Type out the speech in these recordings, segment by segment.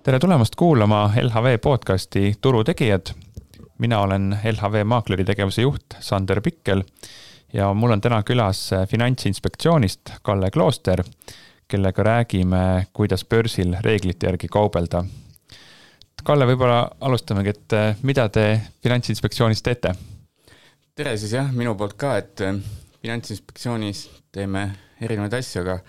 Tere tulemast kuulama LHV podcasti Turutegijad. Mina olen LHV maakleri tegevuse juht Sander Pikkel ja mul on täna külas Finantsinspektsioonist Kalle Klooster, kellega räägime, kuidas börsil reeglite järgi kaubelda. Kalle, võib-olla alustamegi, et mida te Finantsinspektsioonis teete? Tere siis jah, minu poolt ka, et Finantsinspektsioonis teeme erinevaid asju, aga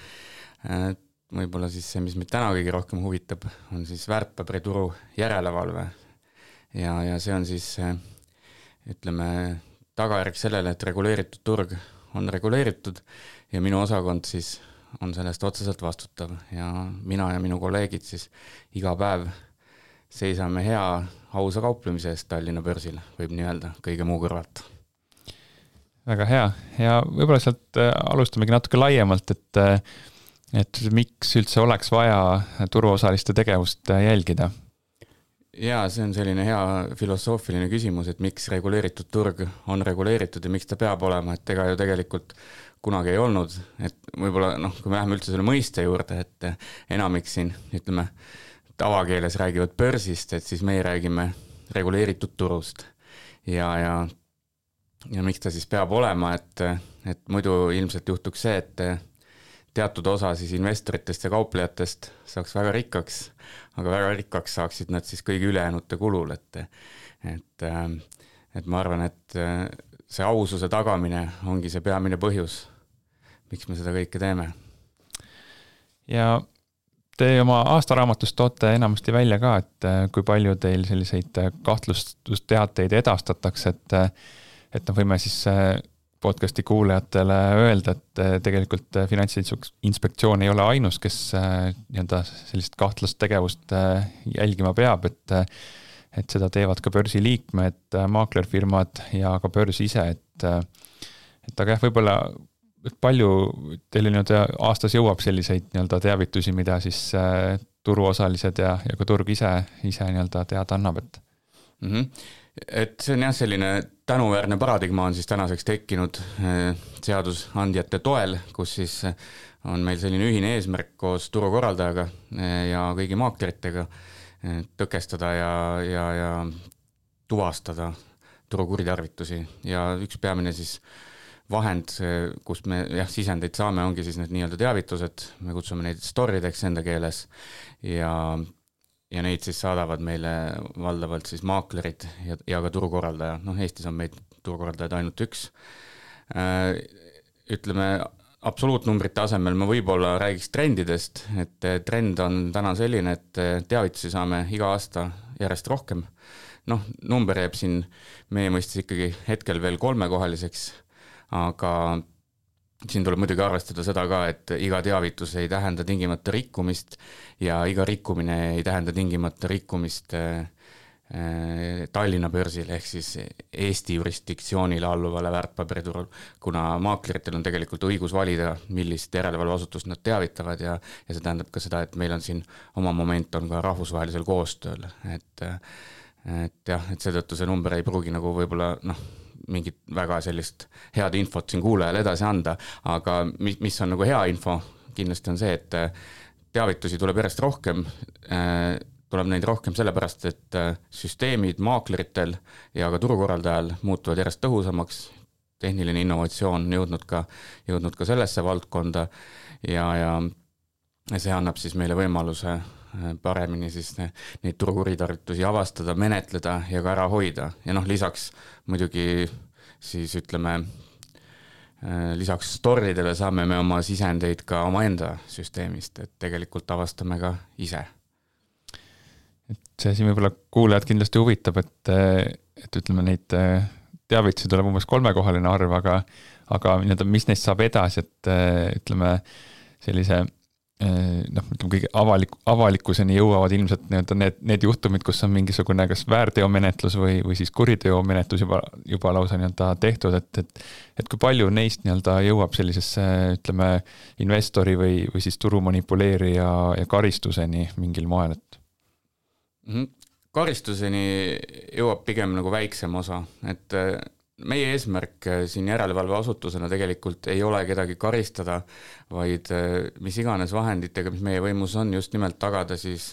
võib-olla siis see, mis meid täna kõige rohkem huvitab, on siis väärtpaberituru järelevalve. Ja see on siis, ütleme, tagajärg sellele, et reguleeritud turg on reguleeritud ja minu osakond siis on sellest otseselt vastutav. Ja mina ja minu kolleegid siis iga päev seisame hea ausa kauplemise eest Tallinna börsil, võib nii öelda, kõige muu kõrvalt. Väga hea. Ja võib-olla sealt alustamegi natuke laiemalt, et miks üldse oleks vaja turuosaliste tegevust jälgida? Ja see on selline hea filosoofiline küsimus, et miks reguleeritud turg on reguleeritud ja miks ta peab olema, et ega ju tegelikult kunagi ei olnud, et võib-olla kui me läheme üldse selle mõiste juurde, et enamik siin, ütleme, tavakeeles räägivad börsist, et siis meie räägime reguleeritud turust ja miks ta siis peab olema, et muidu ilmselt juhtuks see, et teatud osa siis investoritest ja kauplejatest saaks väga rikkaks, aga väga rikkaks saaksid nad siis kõigi ülejäänute kulul, et ma arvan, et see aususe tagamine ongi see peamine põhjus, miks me seda kõike teeme. Ja te oma aastaraamatus toote enamasti välja ka, et kui palju teil selliseid kahtlustusteateid edastatakse, et võime siis podcasti kuulajatele öelda, et tegelikult Finantsinspektsioon ei ole ainus, kes sellist kahtlast tegevust jälgima peab, et seda teevad ka börsi liikmed, maaklerfirmad ja ka börs ise, et aga jah, võib-olla palju teil aastas jõuab selliseid teavitusi, mida siis turuosalised ja ka turg ise teada annab, et Et see on jah selline tänuväärne paradigma on siis tänaseks tekkinud seadusandjate toel, kus siis on meil selline ühine eesmärk koos turukorraldajaga ja kõigi maakleritega tõkestada ja tuvastada turukuritarvitusi. Ja üks peamine siis vahend, kust me sisendeid saame, ongi siis need nii-öelda teavitused, me kutsume neid storideks enda keeles ja neid siis saadavad meile valdavalt siis maaklerid ja ka turukorraldaja. Eestis on meid turukorraldajaid ainult üks. Ütleme, absoluutnumbrite asemel ma võib-olla räägiks trendidest, et trend on täna selline, et teavitusi saame iga aasta järjest rohkem. Number jääb siin meie mõistes ikkagi hetkel veel 3-kohaliseks, aga siin tuleb muidugi arvestada seda ka, et iga teavitus ei tähenda tingimata rikkumist ja iga rikkumine ei tähenda tingimata rikkumist Tallinna börsil ehk siis Eesti jurisdiktsioonile alluvale väärtpaberiturul, kuna maakleritel on tegelikult õigus valida, millist järelevalveasutust nad teavitavad ja see tähendab ka seda, et meil on siin oma moment on ka rahvusvahelisel koostööl, et seetõttu see number ei pruugi võib-olla mingit väga sellist head infot siin kuulajale edasi anda, aga mis on hea info, kindlasti on see, et teavitusi tuleb järjest rohkem, tuleb neid rohkem sellepärast, et süsteemid maakleritel ja ka turukorraldajal muutuvad järjest tõhusamaks, tehniline innovatsioon jõudnud ka sellesse valdkonda ja see annab siis meile võimaluse paremini siis neid turukuritarvitusi avastada, menetleda ja ka ära hoida. Ja lisaks muidugi siis ütleme, lisaks storidele saame me oma sisendeid ka oma enda süsteemist, et tegelikult avastame ka ise. Et see siin võib-olla kuulajad kindlasti huvitab, et ütleme neid teavitusi tuleb umbes 3-kohaline arv, aga mis neist saab edasi, et ütleme sellise kõige avalikkuseni jõuavad ilmselt need juhtumid, kus on mingisugune kas väärteomenetlus või siis kuriteomenetlus juba lausa tehtud, et kui palju neist jõuab sellisesse, ütleme, investori või siis turu manipuleerija ja karistuseni mingil moel, et Karistuseni jõuab pigem väiksem osa, et meie eesmärk siin järelevalveasutusena tegelikult ei ole kedagi karistada, vaid mis iganes vahenditega, mis meie võimus on, just nimelt tagada siis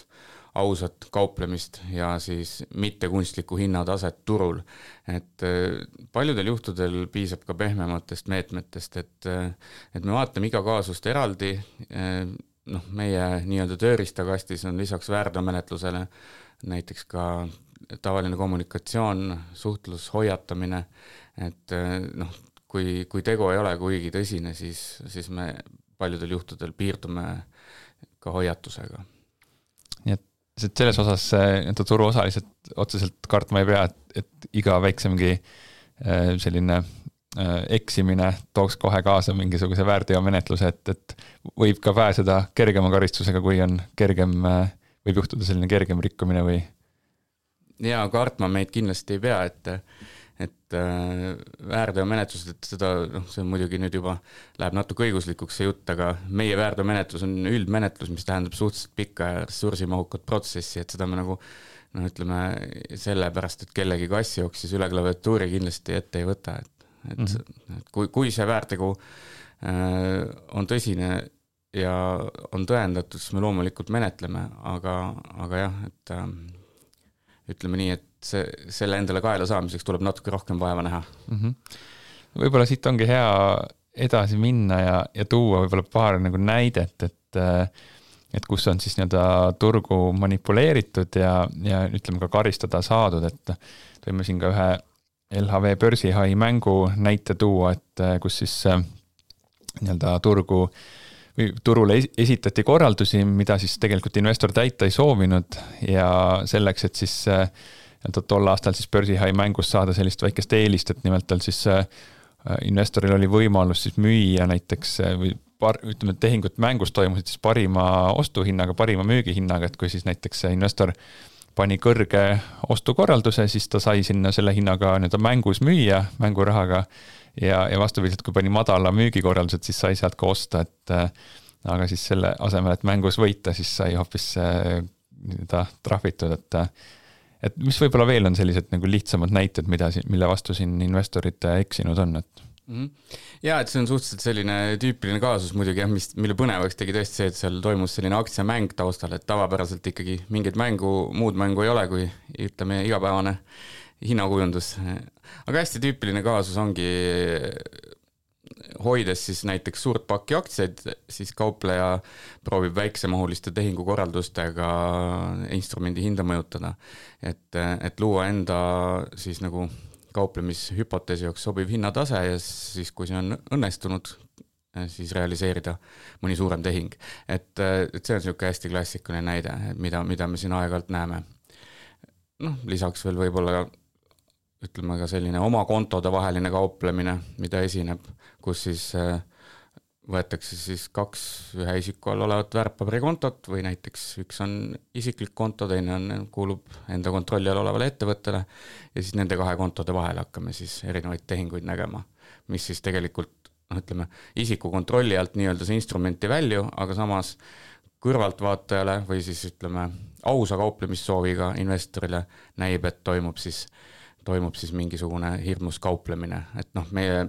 ausat kauplemist ja siis mitte kunstlikku hinnataset turul. Et paljudel juhtudel piisab ka pehmematest meetmetest, et me vaatame iga kaasust eraldi, meie nii-öelda tööriistakastis on lisaks väärteomenetlusele näiteks ka tavaline kommunikatsioon, suhtlus, hoiatamine, et kui tegu ei ole kuigi tõsine, siis me paljudel juhtudel piirdume ka hoiatusega. Nii et selles osas turuosalised otseselt kartma ei pea, et iga väiksemgi selline eksimine tooks kohe kaasa mingisuguse väärteomenetluse, et võib ka pääseda kergema karistusega, kui on kergem, võib juhtuda selline kergem rikkumine või? Ja kartma meid kindlasti ei pea, et väärteomenetlused, et seda, see on muidugi nüüd juba läheb natuke õiguslikuks see jutt, aga meie väärteomenetlus on üldmenetlus, mis tähendab suhteliselt pikka ja ressursimahukat protsessi, et seda me nagu ütleme sellepärast, et kellegi kass jooksis üle klaviatuuri kindlasti ette ei võta, et kui see väärtegu on tõsine ja on tõendatud, siis me loomulikult menetleme, aga jah, et ütleme nii, et selle endale kaela saamiseks tuleb natuke rohkem vaeva näha. Võib-olla siit ongi hea edasi minna ja tuua võib-olla paar nagu näidet, et kus on siis nii-öelda turgu manipuleeritud ja ütleme ka karistada saadud, et võime siin ka ühe LHV börsihai mängu näite tuua, et kus siis nii-öelda turule esitati korraldusi, mida siis tegelikult investor täita ei soovinud ja selleks, et siis tol aastal siis börsihai mängus saada sellist väikest eelist, et nimelt tal siis investoril oli võimalus siis müüa näiteks või ütleme, et tehingud mängus toimusid siis parima ostuhinnaga, parima müügihinnaga, et kui siis näiteks investor pani kõrge ostukorralduse, siis ta sai sinna selle hinnaga nii-öelda mängus müüa, mängurahaga ja vastupidiselt, kui pani madala müügikorraldused, siis sai sealt ka osta, aga siis selle asemel, et mängus võita, siis sai hoopis trahvitud, et mis võib-olla veel on sellised nagu lihtsamad näited, mille vastu siin investorid eksinud on, et Ja, et see on suhteliselt selline tüüpiline kaasus muidugi, mille põnevaks tegi tõesti see, et seal toimus selline aktsiamäng taustal, et tavapäraselt ikkagi mingit muud mängu ei ole, kui ütleme igapäevane hinnakujundus. Aga hästi tüüpiline kaasus ongi hoides siis näiteks suurt pakki aktsiaid, siis kaupleja proovib väiksemahuliste tehingukorraldustega instrumendi hinda mõjutada, et luua enda siis nagu kauplemishüpoteesi jaoks sobiv hinnatase ja siis, kui see on õnnestunud, siis realiseerida mõni suurem tehing. Et see on niisugune hästi klassikaline näide, mida me siin aeg-ajalt näeme. Lisaks veel võib-olla ütleme ka selline oma kontode vaheline kauplemine, mida esineb, kus siis võetakse siis 2 ühe isiku all olevat väärtpaberikontot või näiteks üks on isiklik konto, teine kuulub enda kontrolli all olevale ettevõttele ja siis nende 2 kontode vahel hakkame siis erinevaid tehinguid nägema, mis siis tegelikult, ütleme, isiku kontrolli alt nii-öelda see instrumenti välju, aga samas kõrvaltvaatajale või siis ütleme ausa kauplemissooviga investorile näib, et toimub siis mingisugune hirmus kauplemine, et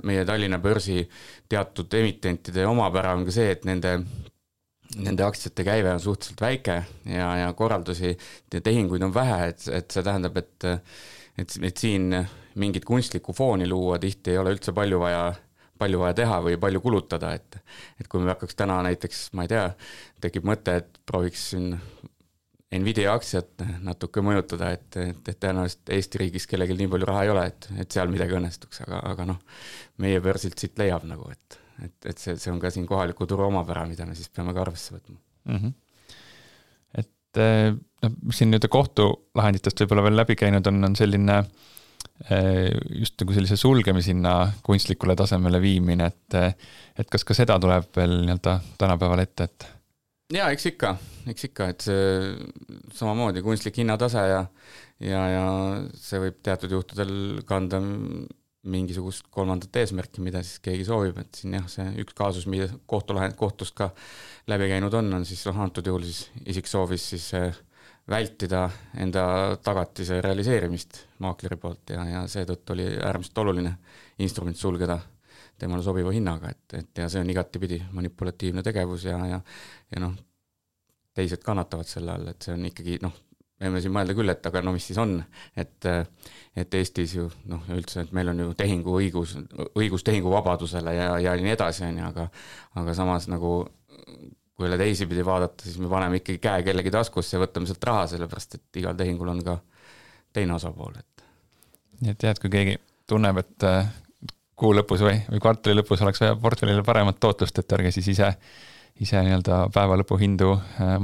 meie Tallinna börsi teatud emitentide omapära on ka see, et nende aktsiate käive on suhteliselt väike ja korraldusi ja tehinguid on vähe, et see tähendab, et siin mingit kunstlikku fooni luua tihti ei ole üldse palju vaja teha või palju kulutada, et kui me hakkaks täna näiteks, ma ei tea, tekib mõte, et prooviks siin Nvidia aktsiat natuke mõjutada, et tõenäoliselt Eesti riigis kellelgi nii palju raha ei ole, et seal midagi õnnestuks, aga meie börsilt siit leiab nagu, et see on ka siin kohaliku turu omapära, mida me siis peame ka arvesse võtma. Et siin nüüd kohtulahenditest võib-olla veel läbi käinud on selline just nagu sellise sulgemishinna kunstlikule tasemele viimine, et kas ka seda tuleb veel nii-öelda tänapäeval ette, et Ja, eks ikka, et see samamoodi kunstlik hinnatase ja see võib teatud juhtudel kanda mingisugust kolmandat eesmärki, mida siis keegi soovib, et siin jah, see üks kaasus, mida kohtust ka läbi käinud on siis antud juhul siis isik soovis siis vältida enda tagatise realiseerimist maakleri poolt ja seetõttu oli äärmiselt oluline instrument sulgeda temale sobiva hinnaga, et ja see on igatipidi manipulatiivne tegevus ja teised kannatavad selle all, et see on ikkagi võime siin mõelda küll, et aga no mis siis on, et Eestis ju üldse, et meil on ju õigus tehinguvabadusele ja nii edasi, aga samas nagu kui üle teisipidi vaadata, siis me paneme ikkagi käe kellegi taskusse ja võtame sealt raha, sellepärast et igal tehingul on ka teine osapool. Nii et tead, kui keegi tunneb, et kuu lõpus või kvartali lõpus oleks vaja portfellile paremat tootlust, et ärge siis ise nii-öelda päeva lõpu hindu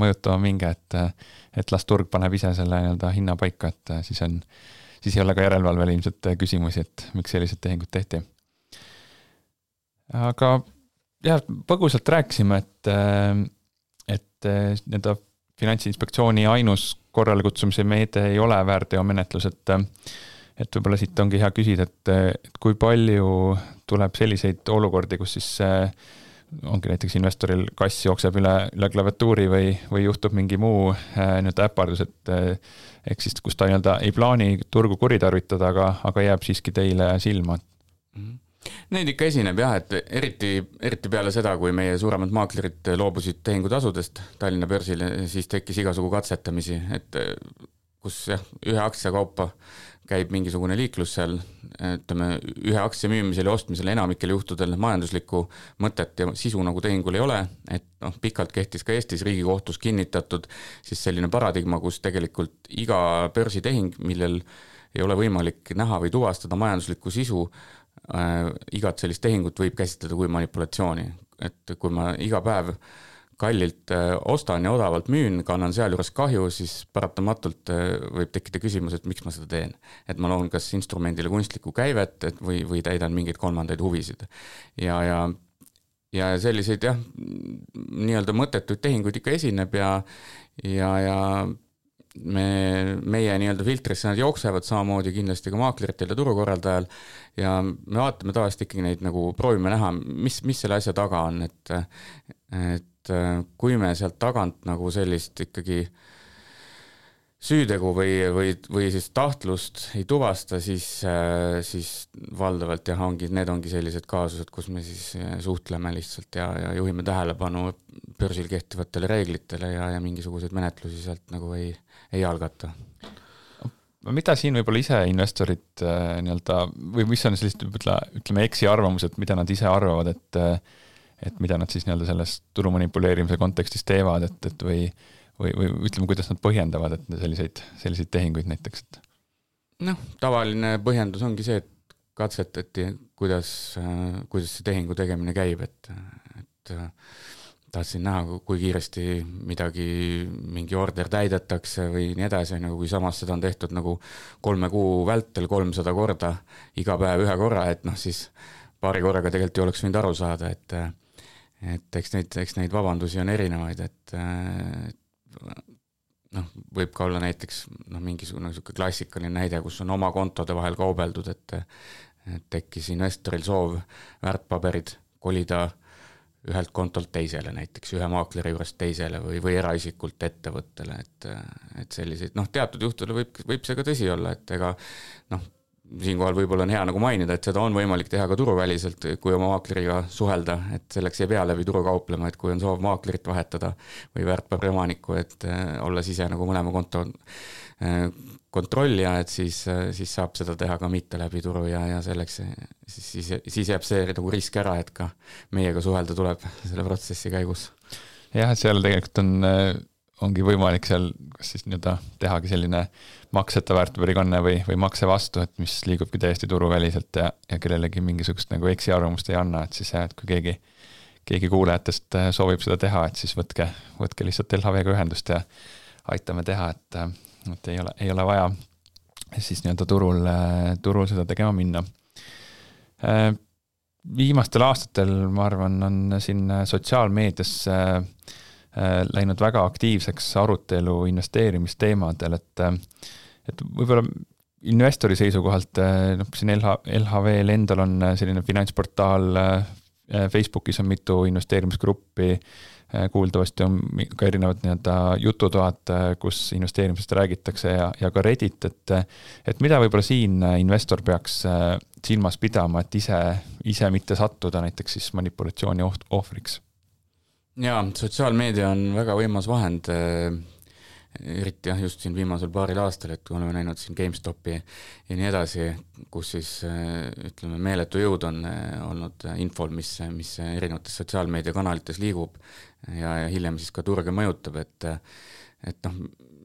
mõjutama minge, et las turg paneb ise selle nii-öelda hinna paika, et siis ei ole ka järelevalvel ilmselt küsimusi, et miks sellised tehingud tehti. Aga jah, põgusalt rääkisime, et nii-öelda Finantsinspektsiooni ainus korrale kutsumise meede ei ole väärteomenetlus, et võib-olla siit ongi hea küsida, et kui palju tuleb selliseid olukordi, kus siis ongi näiteks investoril kass jookseb üle klaviatuuri või juhtub mingi muu nii-öelda äpardus, et ehk siis kus ta nii-öelda ei plaani turgu kuritarvitada, aga jääb siiski teile silma. Neid ikka esineb jah, et eriti peale seda, kui meie suuremad maaklerid loobusid tehingutasudest Tallinna börsil, siis tekkis igasugu katsetamisi, et kus jah, ühe aktsia kaupa käib mingisugune liiklus seal, ütleme, ühe aktsia müümisel ja ostmisel enamikel juhtudel majanduslikku mõtet ja sisu nagu tehingul ei ole, et pikalt kehtis ka Eestis Riigikohtus kinnitatud siis selline paradigma, kus tegelikult iga börsitehing, millel ei ole võimalik näha või tuvastada majanduslikku sisu, igat sellist tehingut võib käsitleda kui manipulatsiooni, et kui ma iga päev kallilt ostan ja odavalt müün, kannan seal juures kahju, siis paratamatult võib tekkida küsimus, et miks ma seda teen. Et ma loon kas instrumendile kunstlikku käivet või täidan mingeid kolmandaid huvisid. Ja selliseid jah, nii-öelda mõttetuid tehinguid ikka esineb ja meie nii-öelda filtrisse nad jooksevad samamoodi kindlasti ka maakleritel ja turukorraldajal ja me vaatame tavaliselt ikkagi neid nagu proovime näha, mis selle asja taga on, et kui me sealt tagant nagu sellist ikkagi süütegu või siis tahtlust ei tuvasta, siis valdavalt jah, need ongi sellised kaasused, kus me siis suhtleme lihtsalt ja juhime tähelepanu börsil kehtivatele reeglitele ja mingisuguseid menetlusi sealt nagu ei algata. Mida siin võib-olla ise investorid nii-öelda, või mis on sellist, ütleme, eksiarvamused, mida nad ise arvavad, et mida nad siis nii-öelda selles turu manipuleerimise kontekstis teevad, et või ütleme, kuidas nad põhjendavad, et selliseid tehinguid näiteks? Tavaline põhjendus ongi see, et katsetati, kuidas see tehingu tegemine käib, et tahtsin näha, kui kiiresti mingi order täidetakse või nii edasi, kui samas seda on tehtud nagu 3 kuu vältel 300 korda, iga päev ühe korra, et siis paari korraga tegelikult ei oleks võinud aru saada, et eks neid vabandusi on erinevaid, et võib ka olla näiteks mingisugune klassikaline näide, kus on oma kontode vahel kaubeldud, et tekkis investoril soov väärtpaberid kolida ühelt kontolt teisele, näiteks ühe maakleri juurest teisele või eraisikult ettevõttele, et selliseid, teatud juhtudel võib see ka tõsi olla, et ega siinkohal võib-olla on hea nagu mainida, et seda on võimalik teha ka turuväliselt, kui oma maakleriga suhelda, et selleks ei pea läbi turu kauplema, et kui on soov maaklerit vahetada või väärtpaberi omanikku, et olles ise nagu mõlema konto kontrollija, et siis saab seda teha ka mitte läbi turu ja selleks siis jääb see nagu risk ära, et ka meiega suhelda tuleb selle protsessi käigus. Jah, et seal tegelikult ongi võimalik seal kas siis nii-öelda tehagi selline makseta väärtpaberikanne või makse vastu, et mis liigubki täiesti turuväliselt ja kellelegi mingisugust nagu eksiarvamust ei anna, et siis et kui keegi kuulajatest soovib seda teha, et siis võtke lihtsalt LHV-ga ühendust ja aitame teha, et ei ole vaja siis nii-öelda turul seda tegema minna. Viimastel aastatel, ma arvan, on siin sotsiaalmeedias läinud väga aktiivseks arutelu investeerimisteemadel, et võib-olla investori seisukohalt, siin LHV-l endal on selline finantsportaal, Facebookis on mitu investeerimisgruppi, kuuldavasti on ka erinevad nii-öelda jututoad, kus investeerimisest räägitakse ja ka Reddit, et mida võib-olla siin investor peaks silmas pidama, et ise mitte sattuda näiteks siis manipulatsiooni ohvriks? Jaa, sotsiaalmeedia on väga võimas vahend eriti jah, just siin viimasel paaril aastal, et oleme näinud siin GameStopi ja nii edasi, kus siis ütleme, meeletu jõud on olnud infol, mis erinevates sotsiaalmeediakanalites liigub ja hiljem siis ka turge mõjutab, et noh,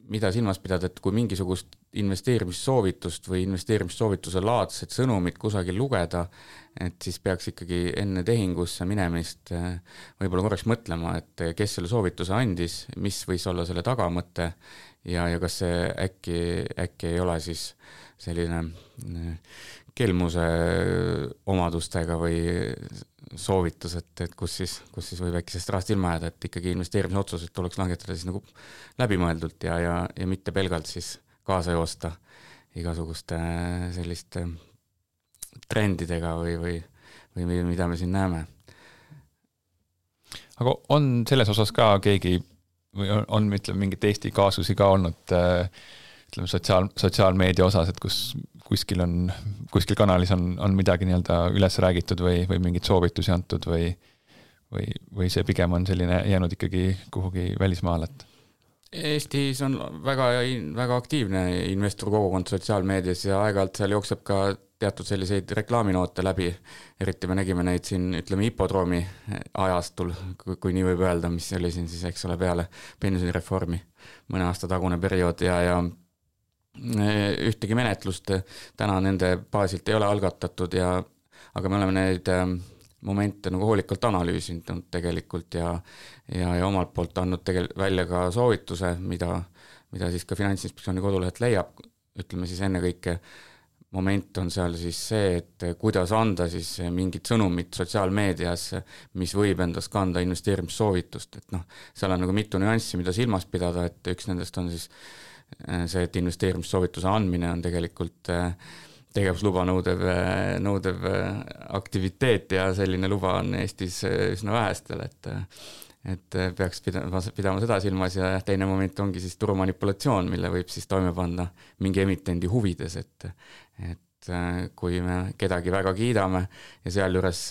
mida silmas pidada, et kui mingisugust investeerimissoovitust või investeerimissoovituse laadset sõnumit kusagil lugeda, et siis peaks ikkagi enne tehingusse minemist võib-olla korraks mõtlema, et kes selle soovituse andis, mis võis olla selle tagamõte ja kas see äkki ei ole siis selline kelmuse omadustega või soovitus, et kus siis võib äkki sellest rahast ilma jääda, et ikkagi investeerimisotsused tuleks langetada siis nagu läbimõeldult ja mitte pelgalt siis kaasa joosta igasuguste selliste trendidega või mida me siin näeme. Aga on selles osas ka keegi või on ütleme, mingit Eesti kaasusi ka olnud ütleme sotsiaalmeedia osas, et kuskil kanalis on midagi nii-öelda üles räägitud või mingit soovitusi antud või see pigem on selline jäänud ikkagi kuhugi välismaale? Eestis on väga aktiivne investorkogukond sotsiaalmeedias ja aeg-ajalt seal jookseb ka teatud selliseid reklaaminoote läbi, eriti me nägime neid siin, ütleme, hipodroomi ajastul, kui nii võib öelda, mis oli siin siis, eks ole, peale pensionireformi mõne aasta tagune periood ja ühtegi menetlust täna nende baasilt ei ole algatatud aga me oleme neid momente nagu hoolikalt analüüsinud tegelikult ja omalt poolt andnud välja ka soovituse, mida siis ka Finantsinspektsiooni kodulehelt leiab, ütleme siis ennekõike moment on seal siis see, et kuidas anda siis mingit sõnumit sotsiaalmeedias, mis võib endast kanda investeerimissoovitust, et noh, seal on nagu mitu nüanssi, mida silmas pidada, et üks nendest on siis see, et investeerimissoovituse andmine on tegelikult tegevusluba nõudev aktiviteet ja selline luba on Eestis üsna vähestel, et peaks pidama seda silmas ja teine moment ongi siis turumanipulatsioon, mille võib siis toime panna mingi emitendi huvides, et kui me kedagi väga kiidame ja sealjuures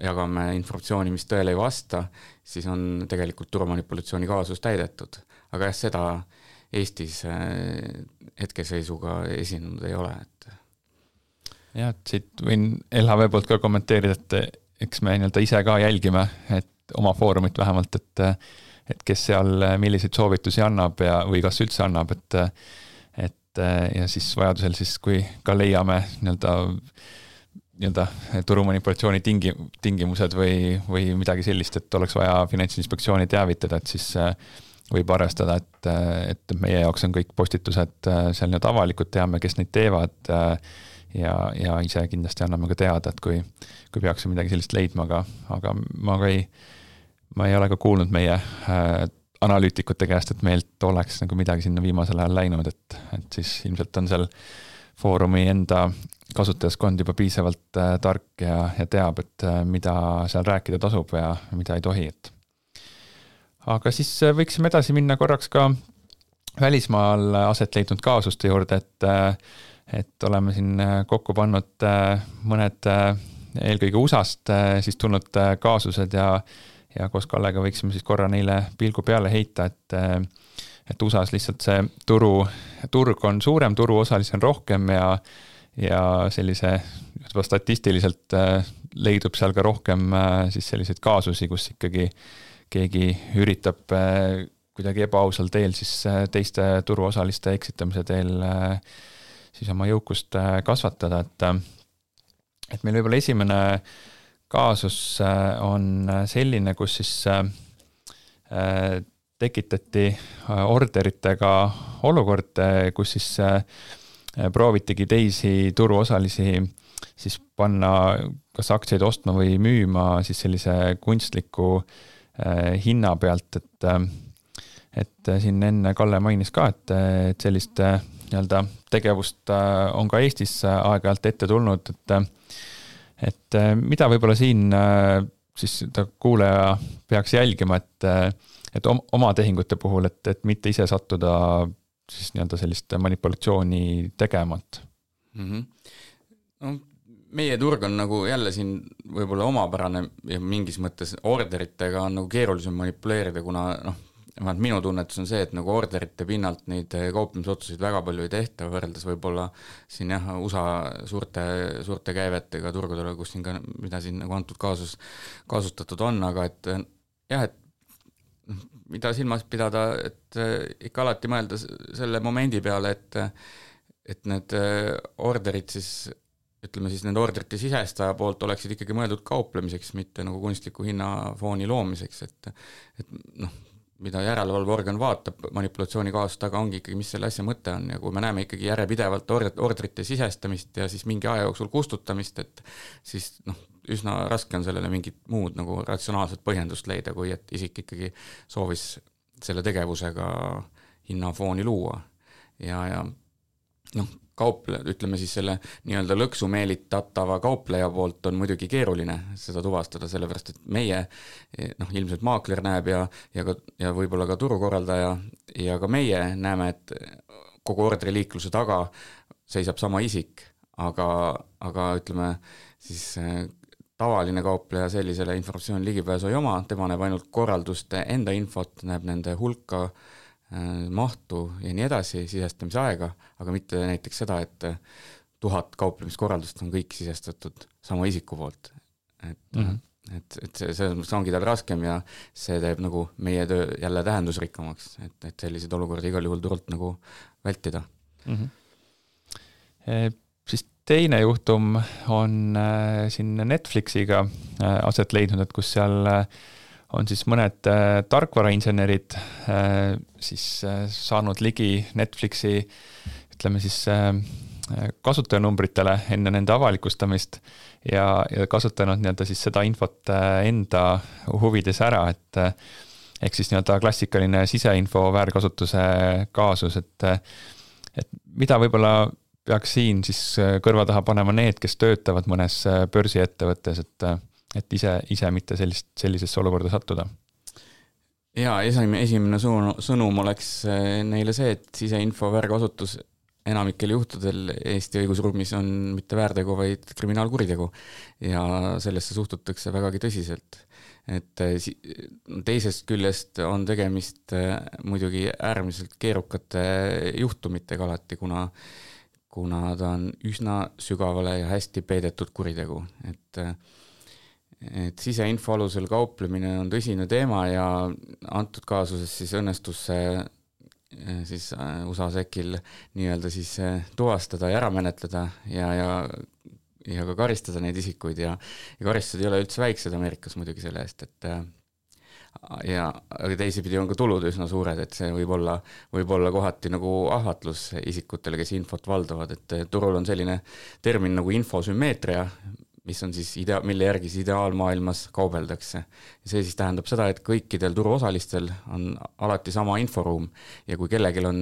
jagame informatsiooni, mis tõele ei vasta, siis on tegelikult turumanipulatsiooni kaasus täidetud. Aga jah, seda Eestis hetkeseisuga esinenud ei ole. Jah, et siit võin LHV poolt ka kommenteerida, et eks me nii-öelda ise ka jälgime, et oma foorumit vähemalt, et kes seal milliseid soovitusi annab või kas üldse annab, ja siis vajadusel siis, kui ka leiame nii-öelda turumanipulatsiooni tingimused või midagi sellist, et oleks vaja Finantsinspektsiooni teavitada, et siis võib arvestada, et meie jaoks on kõik postitused seal nii-öelda avalikud, teame, kes neid teevad ja ise kindlasti anname ka teada, et kui peaksime midagi sellist leidma, aga ma ei ole ka kuulnud meie analüütikute käest, et meilt oleks nagu midagi sinna viimasel ajal läinud, et siis ilmselt on seal foorumi enda kasutajaskond juba piisavalt tark ja teab, et mida seal rääkida tasub ja mida ei tohi. Aga siis võiksime edasi minna korraks ka välismaal aset leidnud kaasuste juurde, et oleme siin kokku pannud mõned eelkõige USA-st siis tulnud kaasused ja koos Kallega võiksime siis korra neile pilgu peale heita, et USA-s lihtsalt see turg on suurem, turuosalisi on rohkem ja sellise juba statistiliselt leidub seal ka rohkem siis selliseid kaasusi, kus ikkagi keegi üritab kuidagi ebaausal teel siis teiste turuosaliste eksitamise teel siis oma jõukust kasvatada, et meil võib-olla esimene kaasus on selline, kus siis tekitati orderitega olukord, kus siis proovitigi teisi turuosalisi siis panna kas aktsiaid ostma või müüma siis sellise kunstliku hinna pealt, et siin enne Kalle mainis ka, et sellist nii-öelda tegevust on ka Eestis aeg-ajalt ette tulnud, et mida võib-olla siin siis kuulaja peaks jälgima, et oma tehingute puhul, et mitte ise sattuda siis nii-öelda sellist manipulatsiooni tegemat. No, meie turg on nagu jälle siin võib-olla omapärane ja mingis mõttes orderitega on nagu keerulisem manipuleerida, kuna minu tunnetus on see, et nagu orderite pinnalt neid kauplemisotsuseid väga palju ei tehta, võrreldes võib-olla siin USA suurte käivetega turgudele, kus siin ka, mida siin nagu antud kaasustatud on, aga et jah, et mida silmas pidada, et ikka alati mõelda selle momendi peale, et need orderid siis, ütleme siis nende orderite sisestaja poolt oleksid ikkagi mõeldud kauplemiseks, mitte nagu kunstliku hinnafooni loomiseks, et noh, mida järelevalveorgan vaatab manipulatsiooni kaasust taga, ongi ikkagi, mis selle asja mõte on ja kui me näeme ikkagi järjepidevalt orderite sisestamist ja siis mingi aja jooksul kustutamist, et siis üsna raske on sellele mingit muud nagu ratsionaalset põhjendust leida, kui et isik ikkagi soovis selle tegevusega hinnafooni luua ja ütleme siis selle nii-öelda lõksu meelitatava kaupleja poolt on muidugi keeruline seda tuvastada, sellepärast et meie, ilmselt maakler näeb ja võib-olla ka turukorraldaja ja ka meie näeme, et kogu orderiliikluse taga seisab sama isik, aga ütleme siis tavaline kaupleja sellisele informatsiooni ligipääsu ei oma, tema näeb ainult korralduste enda infot, näeb nende hulka, mahtu ja nii edasi, sisestamise aega, aga mitte näiteks seda, et 1000 kauplemiskorraldust on kõik sisestatud sama isiku poolt. Et see ongi tal raskem ja see teeb nagu meie töö jälle tähendusrikkamaks, et sellised olukordi igal juhul turult nagu vältida. Siis teine juhtum on siin Netflixiga aset leidnud, et kus seal on siis mõned tarkvarainsenerid siis saanud ligi Netflixi, ütleme siis kasutajanumbritele enne nende avalikustamist ja kasutanud nii-öelda siis seda infot enda huvides ära, et ehk siis nii-öelda klassikaline siseinfo väärkasutuse kaasus, et mida võib-olla peaks siin siis kõrva taha panema need, kes töötavad mõnes börsiettevõttes, et ise mitte sellisesse olukorda sattuda. Ja esimene sõnum oleks neile see, et siseinfo väärkasutus enamikel juhtudel Eesti õigusruumis on mitte väärtegu, vaid kriminaalkuritegu ja sellesse suhtutakse vägagi tõsiselt. Et teisest küljest on tegemist muidugi äärmiselt keerukate juhtumitega alati, kuna ta on üsna sügavale ja hästi peidetud kuritegu, et siseinfo alusel kauplemine on tõsine teema ja antud kaasuses siis õnnestus siis USA SEC-il nii-öelda siis tuvastada ja ära menetleda ja ka karistada neid isikuid ja karistused ei ole üldse väiksed Ameerikas muidugi selle eest, aga teisipidi on ka tulud üsna suured, et see võib olla kohati nagu ahvatlus isikutele, kes infot valdavad, et turul on selline termin nagu infosümmeetria, mis on siis mille järgi siis ideaalmaailmas kaubeldakse. Ja see siis tähendab seda, et kõikidel turuosalistel on alati sama inforuum ja kui kellelgi on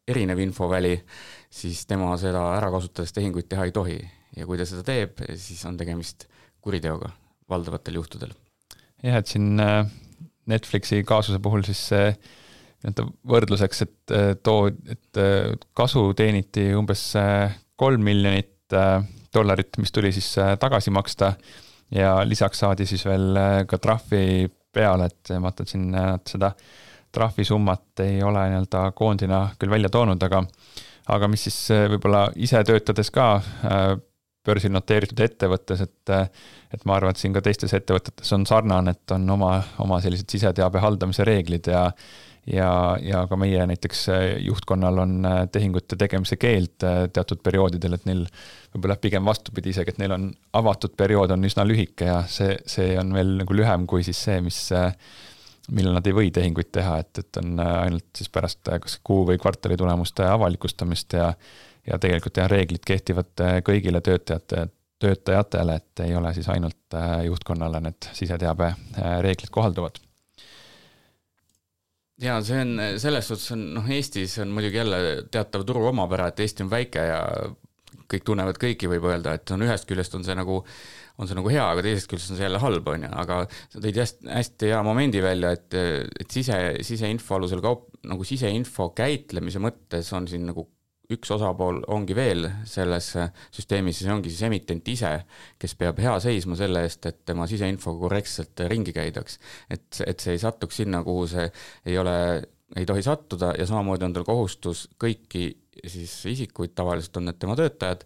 erinev infoväli, siis tema seda ära kasutades tehinguid teha ei tohi. Ja kui ta seda teeb, siis on tegemist kuriteoga valdavatel juhtudel. Jah, et siin Netflixi kaasuse puhul siis võrdluseks, et kasu teeniti umbes $3 miljonit, mis tuli siis tagasi maksta ja lisaks saadi siis veel ka trahvi peale, et vaatan siin seda trahvisummat ei ole nii-öelda koondina küll välja toonud, aga mis siis võib-olla ise töötades ka börsil noteeritud ettevõttes, et ma arvan, et siin ka teistes ettevõtetes on sarnane, et on oma sellised siseteabe haldamise reeglid ja ka meie näiteks juhtkonnal on tehingute tegemise keeld teatud perioodidel, et neil võib-olla pigem vastupidi isegi, et neil on avatud periood on üsna lühike ja see on veel nagu lühem kui siis see, millal nad ei või tehinguid teha, et on ainult siis pärast kas kuu või kvartali tulemuste avalikustamist ja tegelikult reeglid kehtivad kõigile töötajatele, et ei ole siis ainult juhtkonnale need siseteabe reeglid kohalduvad. Ja see on, selles suhtes on, Eestis on muidugi jälle teatav turu omapära, et Eesti on väike ja kõik tunnevad kõiki, võib öelda, et ühest küljest on see nagu hea, aga teisest küljest on see jälle halb, aga sa tõid hästi hea momendi välja, et siseinfo alusel siseinfo käitlemise mõttes on siin nagu üks osapool ongi veel selles süsteemis, siis ongi siis emitent ise, kes peab hea seisma selle eest, et tema siseinfo korrektselt ringi käidaks. Et see ei satuks sinna, kuhu see ei tohi sattuda ja samamoodi on tal kohustus kõiki siis isikuid, tavaliselt on need tema töötajad,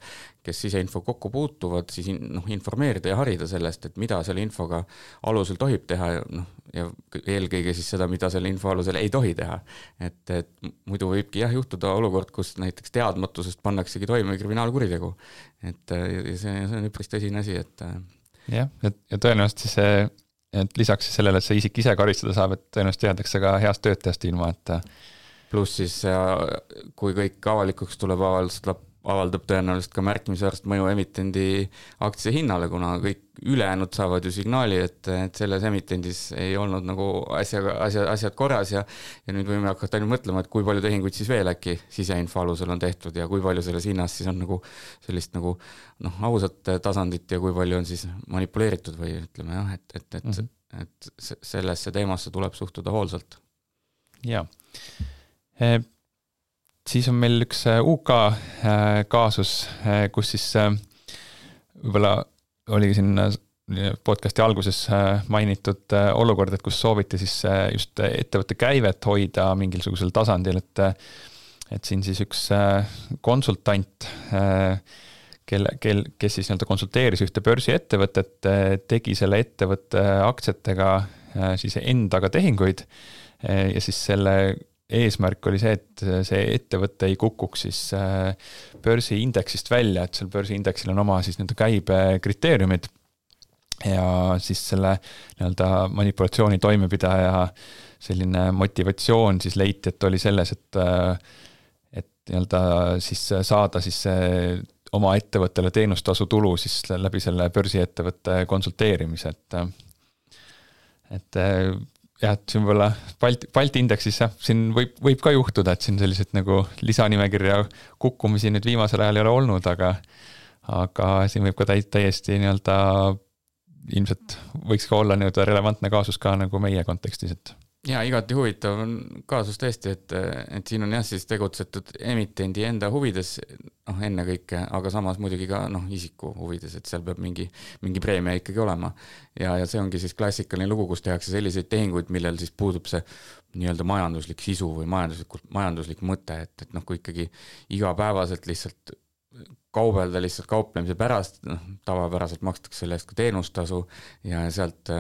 kes siseinfo kokku puutuvad, siis informeerida ja harida sellest, et mida selle infoga alusel tohib teha ja eelkõige siis seda, mida selle info alusel ei tohi teha. Et muidu võibki juhtuda olukord, kus näiteks teadmatusest pannaksegi toime kriminaalkuritegu. Et see on üpris tõsine asi, et jah, ja tõenäoliselt siis see, et lisaks siis sellele, et see isik ise karistada saab, et tõenäoliselt teadakse ka heast töötajast ilma, et pluss siis, kui kõik avalikuks tuleb, avaldab tõenäoliselt ka märkimisväärset mõju emitendi aktsia hinnale, kuna kõik ülejäänud saavad ju signaali, et selles emitendis ei olnud nagu asjad korras ja nüüd võime hakata ainult mõtlema, et kui palju tehinguid siis veel äkki siseinfo alusel on tehtud ja kui palju selles hinnas siis on nagu sellist nagu ausat tasandit ja kui palju on siis manipuleeritud või ütleme jah, et sellesse teemasse tuleb suhtuda hoolsalt. Jaa. Siis on meil üks UK kaasus, kus siis võib-olla oligi siin podcasti alguses mainitud olukord, et kus sooviti siis just ettevõtte käivet hoida mingisugusel tasandil, et siin siis üks konsultant, kes siis konsulteeris ühte börsiettevõtet, tegi selle ettevõtte aktsiatega siis endaga tehinguid ja siis selle eesmärk oli see, et see ettevõte ei kukuks siis börsiindeksist välja, et seal börsiindeksil on oma siis nende käibekriteeriumid ja siis selle manipulatsiooni toimepidaja selline motivatsioon siis leiti, et oli selles, et siis saada siis oma ettevõttele teenustasu tulu siis läbi selle börsiettevõtte konsulteerimise, et jah, et siin võib-olla Balti indeksis siin võib ka juhtuda, et siin sellised nagu lisanimekirja kukkumisi nüüd viimasel ajal ei ole olnud, aga siin võib ka täiesti ilmselt võiks ka olla relevantne kaasus ka nagu meie kontekstis, et ja igati huvitav on kaasus tõesti, et siin on siis tegutsetud emitendi enda huvides enne kõike, aga samas muidugi ka isiku huvides, et seal peab mingi preemia ikkagi olema. Ja see ongi siis klassikaline lugu, kus tehakse selliseid tehinguid, millel siis puudub see nii-öelda majanduslik sisu või majanduslik mõte, et kui ikkagi igapäevaselt lihtsalt kaubelda lihtsalt kauplemise pärast, tavapäraselt makstakse selle eest ka teenustasu ja sealt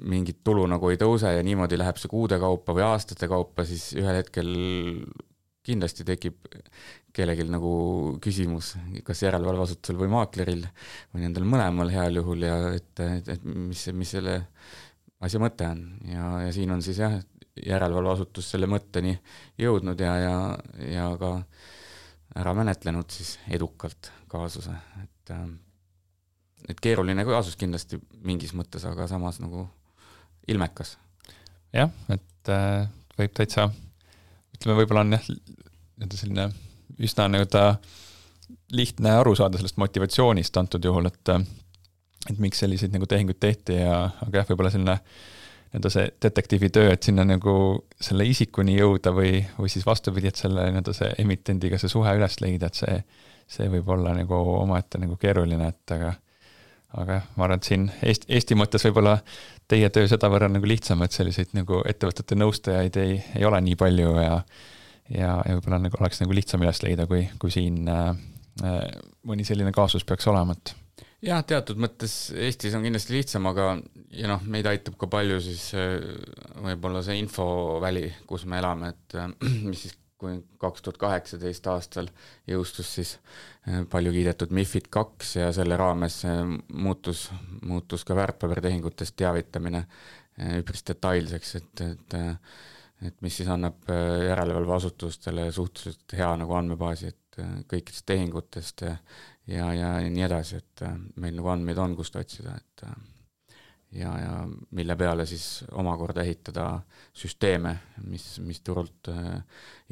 mingit tulu nagu ei tõuse ja niimoodi läheb see kuude kaupa või aastate kaupa, siis ühel hetkel kindlasti tekib kellelgi nagu küsimus, kas järelevalveasutusel või maakleril või nendel mõlemal heal juhul ja et mis selle asja mõte on ja siin on siis järelevalveasutus selle mõtteni jõudnud ja ka ära menetlenud siis edukalt kaasuse, et keeruline kaasus kindlasti mingis mõttes, aga samas nagu ilmekas. Jah, et võib täitsa, ütleme võib-olla on selline üsna lihtne aru saada sellest motivatsioonist antud juhul, et miks selliseid nagu tehinguid tehti aga võib-olla selline see detektiivi töö, et sinna nagu selle isikuni jõuda või siis vastupidi, et selle see emitendiga see suhe üles leida, et see võib olla nagu omaette nagu keeruline, et aga ma arvan, et siin Eesti mõttes võib-olla teie töö seda võrra nagu lihtsam, et selliseid nagu ettevõtete nõustajaid ei ole nii palju ja võib-olla nagu oleks nagu lihtsam üles leida, kui siin mõni selline kaasus peaks olema, et jah, teatud mõttes Eestis on kindlasti lihtsam, aga meid aitab ka palju siis võib-olla see infoväli, kus me elame, et mis siis kui 2018 aastal jõustus siis palju kiidetud MiFID 2 ja selle raames muutus ka väärtpabertehingutest teavitamine üpris detailseks, et mis siis annab järelevalveasutustele suhteliselt hea nagu andmebaasi, et kõikidest tehingutest ja nii edasi, et meil nagu andmeid on, kust otsida, et ja mille peale siis omakorda ehitada süsteeme, mis turult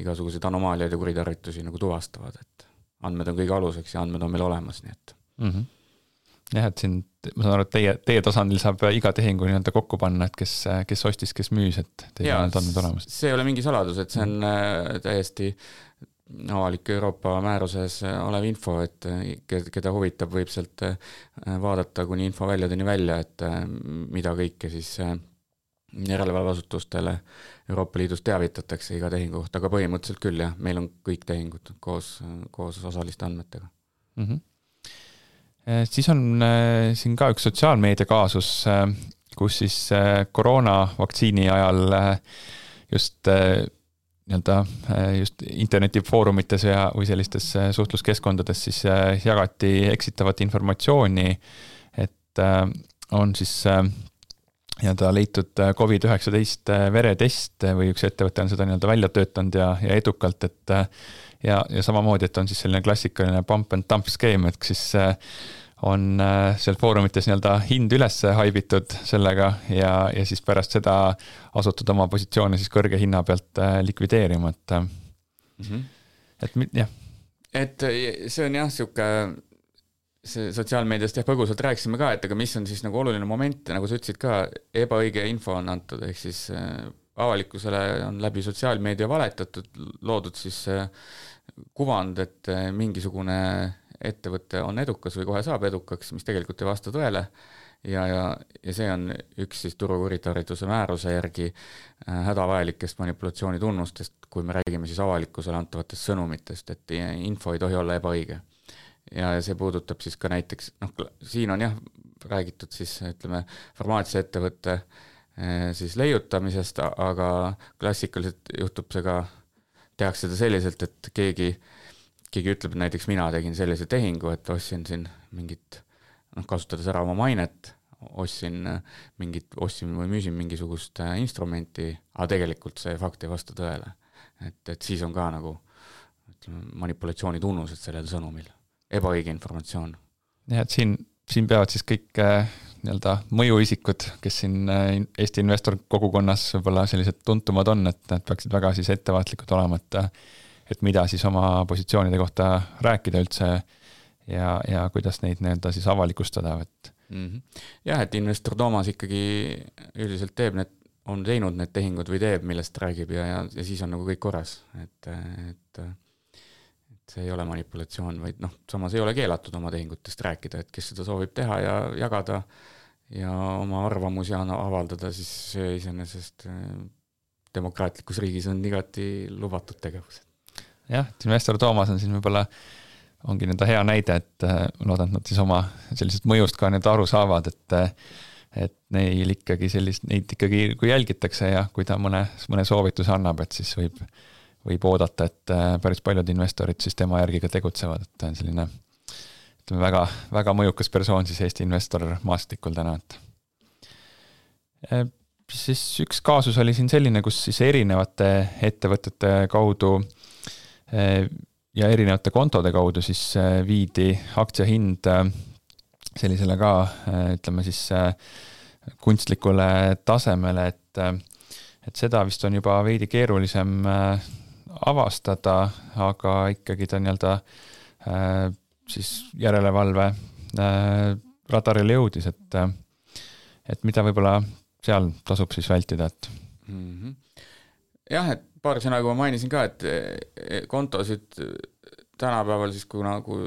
igasuguseid anomaaliaid ja kuritarvitusi nagu tuvastavad, et andmed on kõige aluseks ja andmed on meil olemas, nii et jah, et siin ma saan aru, et teie tasandil saab iga tehingu nii-öelda kokku panna, et kes ostis, kes müüs, et teil on need andmed olemas. See ei ole mingi saladus, et see on täiesti avalik Euroopa määruses olev info, et keda huvitab, võib sealt vaadata kuni info väljadeni välja, et mida kõike siis järelevalveasutustele Euroopa Liidus teavitatakse iga tehingu kohta, aga põhimõtteliselt küll jah, meil on kõik tehingud koos osaliste andmetega. Siis on siin ka üks sotsiaalmeedia kaasus, kus siis koroonavaktsiini ajal just internetifoorumites või sellistes suhtluskeskkondades siis jagati eksitavat informatsiooni, et on siis leitud COVID-19 veretest või üks ettevõte on seda välja töötanud ja edukalt, et ja samamoodi, et on siis selline klassikaline pump and dump skeem, et siis on seal foorumites hind üles haibitud sellega ja siis pärast seda asutud oma positsioone siis kõrge hinna pealt likvideerima, et jah. Et see on jah, see sotsiaalmeediast põgusalt rääkisime ka, et aga mis on siis nagu oluline moment, nagu sa ütlesid ka, ebaõige info on antud, ehk siis avalikkusele on läbi sotsiaalmeedia valetatud, loodud siis kuvand, et mingisugune ettevõte on edukas või kohe saab edukaks, mis tegelikult ei vasta tõele ja see on üks siis turukuritarvituse määruse järgi hädavajalikest manipulatsiooni tunnustest, kui me räägime siis avalikkusele antavatest sõnumitest, et info ei tohi olla ebaõige. Ja see puudutab siis ka näiteks, siin on jah räägitud siis, ütleme, farmaatsiaettevõtte siis leiutamisest, aga klassikaliselt juhtub see ka, tehakse seda selliselt, et keegi ütleb, et näiteks mina tegin sellise tehingu, et ostsin siin mingit, kasutades ära oma mainet, ostsin või müüsin mingisugust instrumenti, aga tegelikult see fakt ei vasta tõele. Et siis on ka nagu manipulatsiooni tunnused sellel sõnumil. Ebaõige informatsioon. Ja, et siin peavad siis kõik mõjuisikud, kes siin Eesti investor kogukonnas võib-olla sellised tuntumad on, et nad peaksid väga siis ettevaatlikud olema, et mida siis oma positsioonide kohta rääkida üldse ja kuidas neid siis avalikustada. Jah, et investor Toomas ikkagi üldiselt on teinud need tehingud või teeb, millest räägib ja siis on nagu kõik korras, et see ei ole manipulatsioon, vaid samas ei ole keelatud oma tehingutest rääkida, et kes seda soovib teha ja jagada ja oma arvamusi avaldada, siis see iseenesest demokraatlikus riigis on igati lubatud tegevus. Jah, et investor Toomas on siin võib-olla ongi hea näide, et loodan, et nad siis oma sellisest mõjust ka aru saavad, et neid ikkagi kui jälgitakse ja kui ta mõne soovituse annab, et siis võib oodata, et päris paljud investorid siis tema järgi ka tegutsevad, et ta on selline väga, väga mõjukas persoon siis Eesti investor maastikul täna. Siis üks kaasus oli siin selline, kus siis erinevate ettevõtete kaudu ja erinevate kontode kaudu siis viidi aktsiahind sellisele ka, ütleme siis kunstlikule tasemele, et seda vist on juba veidi keerulisem avastada, aga ikkagi ta siis järelevalve radarile jõudis, et mida võib-olla seal tasub siis vältida, et Jah, et paar sõna, kui ma mainisin ka, et kontosid tänapäeval siis, kui nagu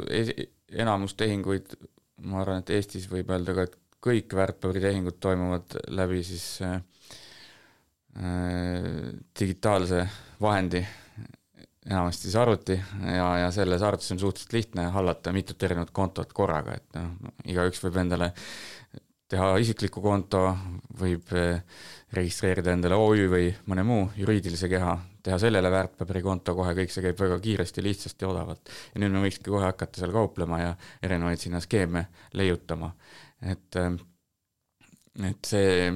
enamus tehinguid, ma arvan, et Eestis võib öelda ka, et kõik väärtpaberitehingud toimuvad läbi siis digitaalse vahendi, enamasti siis arvuti ja selles arvutis on suhteliselt lihtne hallata mitut erinevat kontot korraga, et igaüks võib endale teha isikliku konto, võib registreerida endale OÜ või mõne muu juriidilise keha, teha sellele väärtpaberikonto kohe, kõik see käib väga kiiresti, lihtsasti ja odavalt. Ja nüüd me võikski kohe hakata seal kauplema ja erinevaid sinna skeeme leiutama. Et see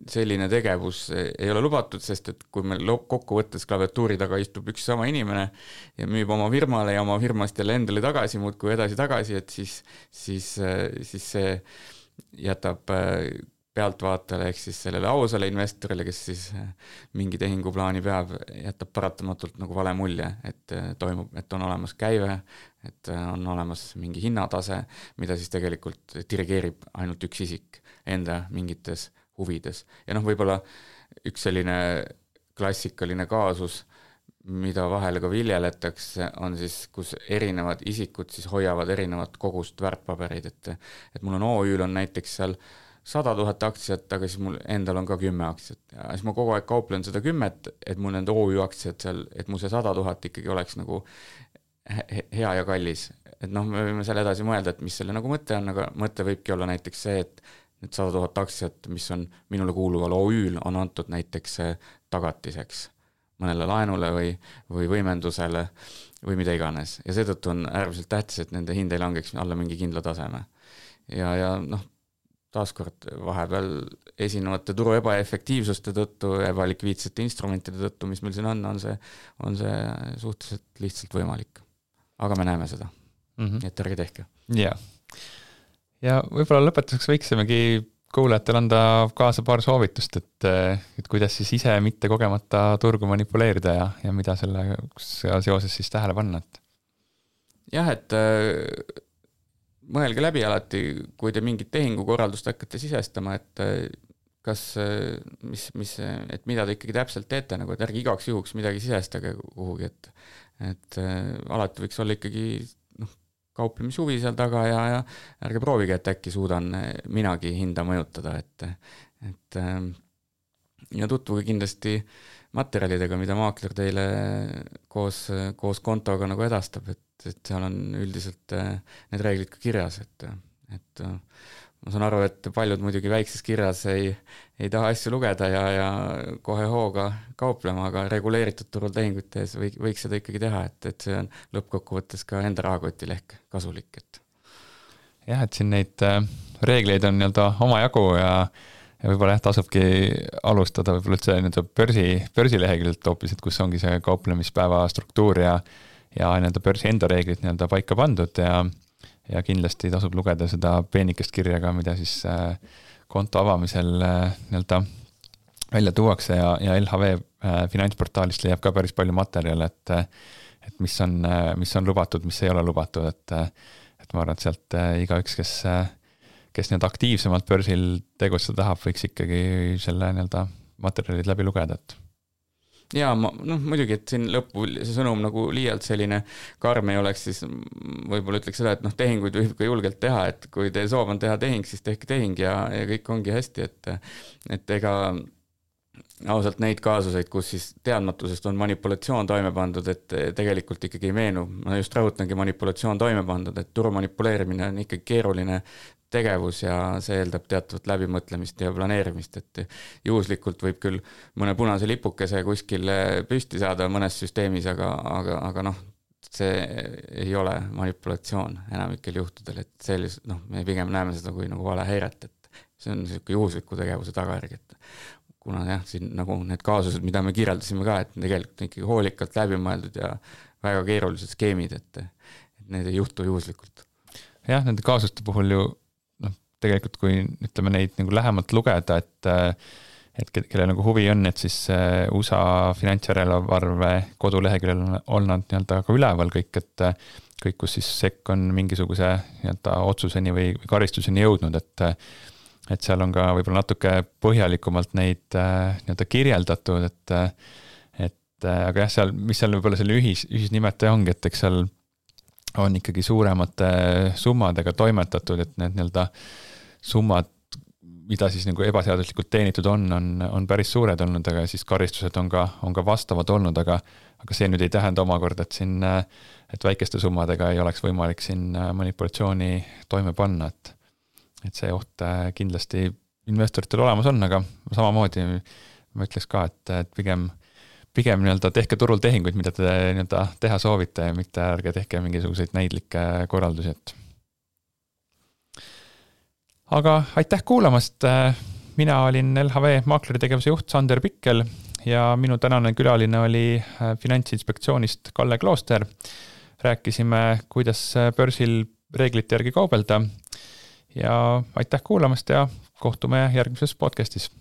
selline tegevus ei ole lubatud, sest et kui meil kokkuvõttes klaviatuuri taga istub üks sama inimene ja müüb oma firmale ja oma firmast jälle endale tagasi, muudkui edasi-tagasi, et siis see jätab pealtvaatajale ehk siis sellele ausale investorile, kes siis mingi tehinguplaani peab, jätab paratamatult nagu vale mulje, et on olemas käive, et on olemas mingi hinnatase, mida siis tegelikult dirigeerib ainult üks isik enda mingites huvides. Ja võib-olla üks selline klassikaline kaasus, mida vahel ka viljeletakse, on siis, kus erinevad isikud siis hoiavad erinevat kogust väärtpabereid, et mul on OÜ-l on näiteks seal 100 000 aktsiat, aga siis mul endal on ka 10 aktsiat ja siis ma kogu aeg kauplen seda 10, et mul nende OÜ aktsiad seal, et mul see 100 000 ikkagi oleks nagu hea ja kallis. Et me võime seal edasi mõelda, et mis selle nagu mõte on, aga mõte võibki olla näiteks see, et need 100 000 aktsiat, mis on minule kuuluval OÜ-l, on antud näiteks tagatiseks mõnele laenule või võimendusele või mida iganes. Ja seetõttu on äärmiselt tähtis, et nende hind ei langeks alla mingi kindla taseme. Ja taaskord vahepeal esinevate turu ebaefektiivsuste tõttu, ebalikviidsete instrumentide tõttu, mis meil siin on see suhteliselt lihtsalt võimalik. Aga me näeme seda, et ärge tehke. Ja võib-olla lõpetuseks võiksimegi kuulajatele anda kaasa paar soovitust, et kuidas siis ise mitte kogemata turgu manipuleerida ja mida selle seoses siis tähele panna. Jah, et mõelge läbi alati, kui te mingit tehingukorraldust hakkate sisestama, et kas, et mida te ikkagi täpselt teete, nagu et ärge igaks juhuks midagi sisestage kuhugi, et alati võiks olla ikkagi kauplemishuvi seal taga ja ärge proovige, et äkki suudan minagi hinda mõjutada, ja tutvuge kindlasti materjalidega, mida maakler teile koos kontoga nagu edastab, et seal on üldiselt need reeglid ka kirjas, et ma saan aru, et paljud muidugi väikses kirjas ei taha asju lugeda ja kohe hooga kauplema, aga reguleeritud turul tehingutes võiks seda ikkagi teha, et see on lõppkokkuvõttes ka enda rahakotile ehk kasulik. Jah, et siin neid reegleid on omajagu ja võib-olla tasubki alustada võib-olla üldse börsileheküljelt hoopis, et kus ongi see kauplemispäeva struktuur ja börsi enda reeglid paika pandud ja kindlasti tasub lugeda seda peenikest kirja ka, mida siis konto avamisel välja tuuakse ja LHV finantsportaalist leiab ka päris palju materjale, et mis on lubatud, mis ei ole lubatud, et ma arvan, et sealt igaüks, kes aktiivsemalt börsil tegutseda tahab, võiks ikkagi selle materjalid läbi lugeda, Ja muidugi, et siin lõppu see sõnum nagu liialt selline karm ei oleks, siis võib-olla ütleks seda, et tehinguid võib ka julgelt teha, et kui teie soov on teha tehing, siis tehke tehing ja kõik ongi hästi, et ega ausalt neid kaasuseid, kus siis teadmatusest on manipulatsioon toime pandud, et tegelikult ikkagi ei meenu. Ma just rõhutangi manipulatsioon toime pandud, et turu manipuleerimine on ikkagi keeruline tegevus ja see eeldab teatavat läbimõtlemist ja planeerimist, et juhuslikult võib küll mõne punase lipukese kuskil püsti saada mõnes süsteemis, aga see ei ole manipulatsioon enamikel juhtudel, et me pigem näeme seda kui nagu vale häiret, et see on selline juhusliku tegevuse tagajärg, et kuna jah, siin nagu need kaasused, mida me kirjeldasime ka, et tegelikult ikkagi hoolikalt läbimõeldud ja väga keerulised skeemid, et need ei juhtu juhuslikult. Jah, nende kaasuste puhul ju tegelikult kui ütleme neid nagu lähemalt lugeda, et kelle nagu huvi on, et siis USA finantsjärelevalve koduleheküljel on nad ka üleval kõik, et kõik, kus siis SEC on mingisuguse otsuseni või karistuseni jõudnud, et seal on ka võib-olla natuke põhjalikumalt neid kirjeldatud, aga jah, mis seal võib-olla selle ühisnimetaja ongi, et eks seal on ikkagi suuremate summadega toimetatud, et need summad, mida siis nagu ebaseaduslikult teenitud on päris suured olnud, aga siis karistused on ka vastavad olnud, aga see nüüd ei tähenda omakorda, et väikeste summadega ei oleks võimalik siin manipulatsiooni toime panna, et see oht kindlasti investoritel olemas on, aga samamoodi ma ütleks ka, et pigem tehke turul tehinguid, mida te teha soovite ja mitte ärge tehke mingisuguseid näidlikke korraldusi. Aga aitäh kuulamast, mina olin LHV maakleri tegevuse juht Sander Pikkel ja minu tänane külaline oli Finantsinspektsioonist Kalle Klooster. Rääkisime, kuidas börsil reeglite järgi kaubelda ja aitäh kuulamast ja kohtume järgmises podcastis.